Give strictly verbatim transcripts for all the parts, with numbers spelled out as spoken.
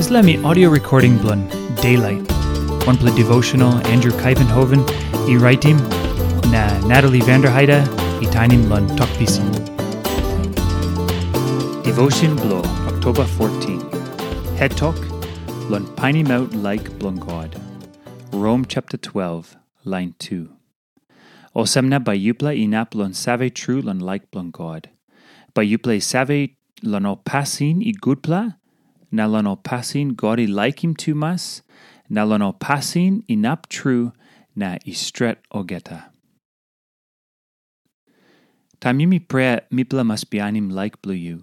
Dispela em i audio recording bilong Daylight, wanpela devotional Andrew Kuyvenhoven i raitim, na Natalie Vanderheide i tainim long Tok Pisin. Devotion bilong Oktoba fourteen. Het tok, long painimaut laik bilong God. Rom chapter twelve, line two. Olsem na bai yupela inap long save tru long laik bilong God. Bai yupela i save long ol pasin i gutpela, na long ol pasin God i laikim tumas, na long ol pasin inap tru na i stret olgeta. Taim yumi prea, mipela mas bihainim laik bilong yu.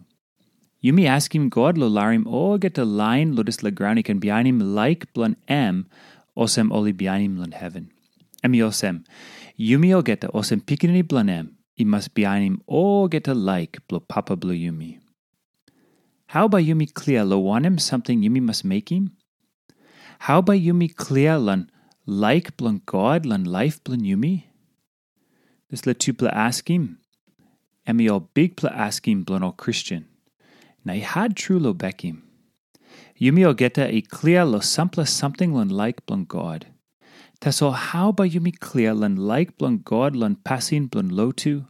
Yumi askim God long larim olgeta lain long dispela graun i ken bihainim laik bilong em, olsem ol i bihainim long heven. Em i olsem, yumi olgeta olsem pikinini bilong em, i mas bihainim olgeta laik bilong Papa bilong yumi. Hau bai yumi klia long wanem samting yumi mas mekim? Hau bai yumi klia long laik bilong God long laip bilong yumi? Dispela tupela askim, em i ol bikpela askim bilong ol Kristen, na i hat tru long bekim. Yumi olgeta i klia long sampela samting long laik bilong God. Tasol hau bai yumi klia long laik bilong God long pasin bilong lotu,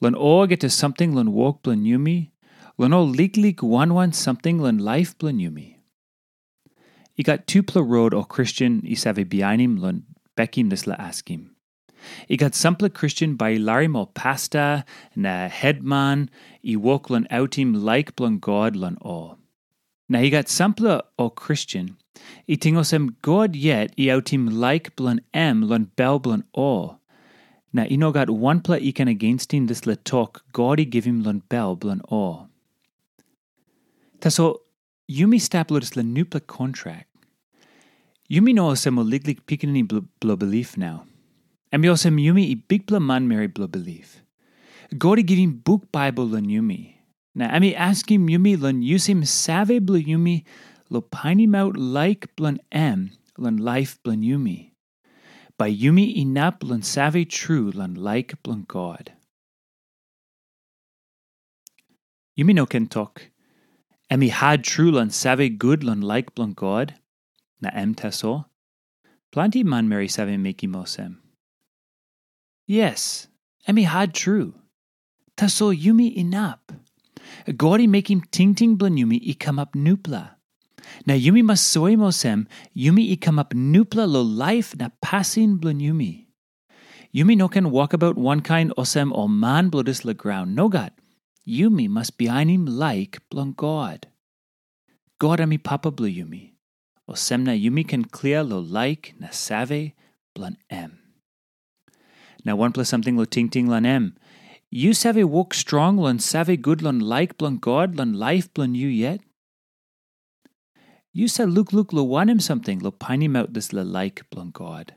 long olgeta samting long wok bilong yumi, long ol liklik wan wan samting long laip bilong yumi? I gat tupela rot ol Kristen i save bihainim long bekim dispela askim. I gat sampela Kristen bai i larim ol pasta na hetman i wok long autim laik bilong God long ol. Na i gat sampela ol Kristen i ting olsem God yet i autim laik bilong em long bel bilong ol. Na i no gat wanpela i ken agenstim dispela tok God i givim long bel bilong ol. Tasol yumi stap long dispela nupela kontrak. Yumi no olsem ol liklik pikinini blo- bilong bilip nau. Em i olsem yumi i bikpela manmeri bilong bilip. God i givim buk Baibel long yumi, na em i askim yumi long yusim save bilong yumi long painimaut laik bilong em long laip bilong yumi. Bai yumi inap long save tru long laik bilong God. Yumi no ken tok, em i hat tru long save gut long laik bilong God, na em tasol. Planti manmeri save mekim olsem. Yes, em i hat tru. Tasol yumi inap. God i mekim tingting bilong yumi i kamap nupela. Na yumi mas soim olsem, yumi i kamap nupela long laip na pasin bilong yumi. Yumi no ken wokabaut wankain olsem ol man bilong dispela graun. Nogat. Yumi mas bihainim laik bilong God. God em i Papa bilong yumi. Olsem na yumi ken klia long laik na save bilong em. Na wanpela samting long tingting long em. Yu save wok strong long save gut long laik bilong God long laip bilong yu yet? Yu save lukluk long wanem samting long painimaut dispela laik bilong God?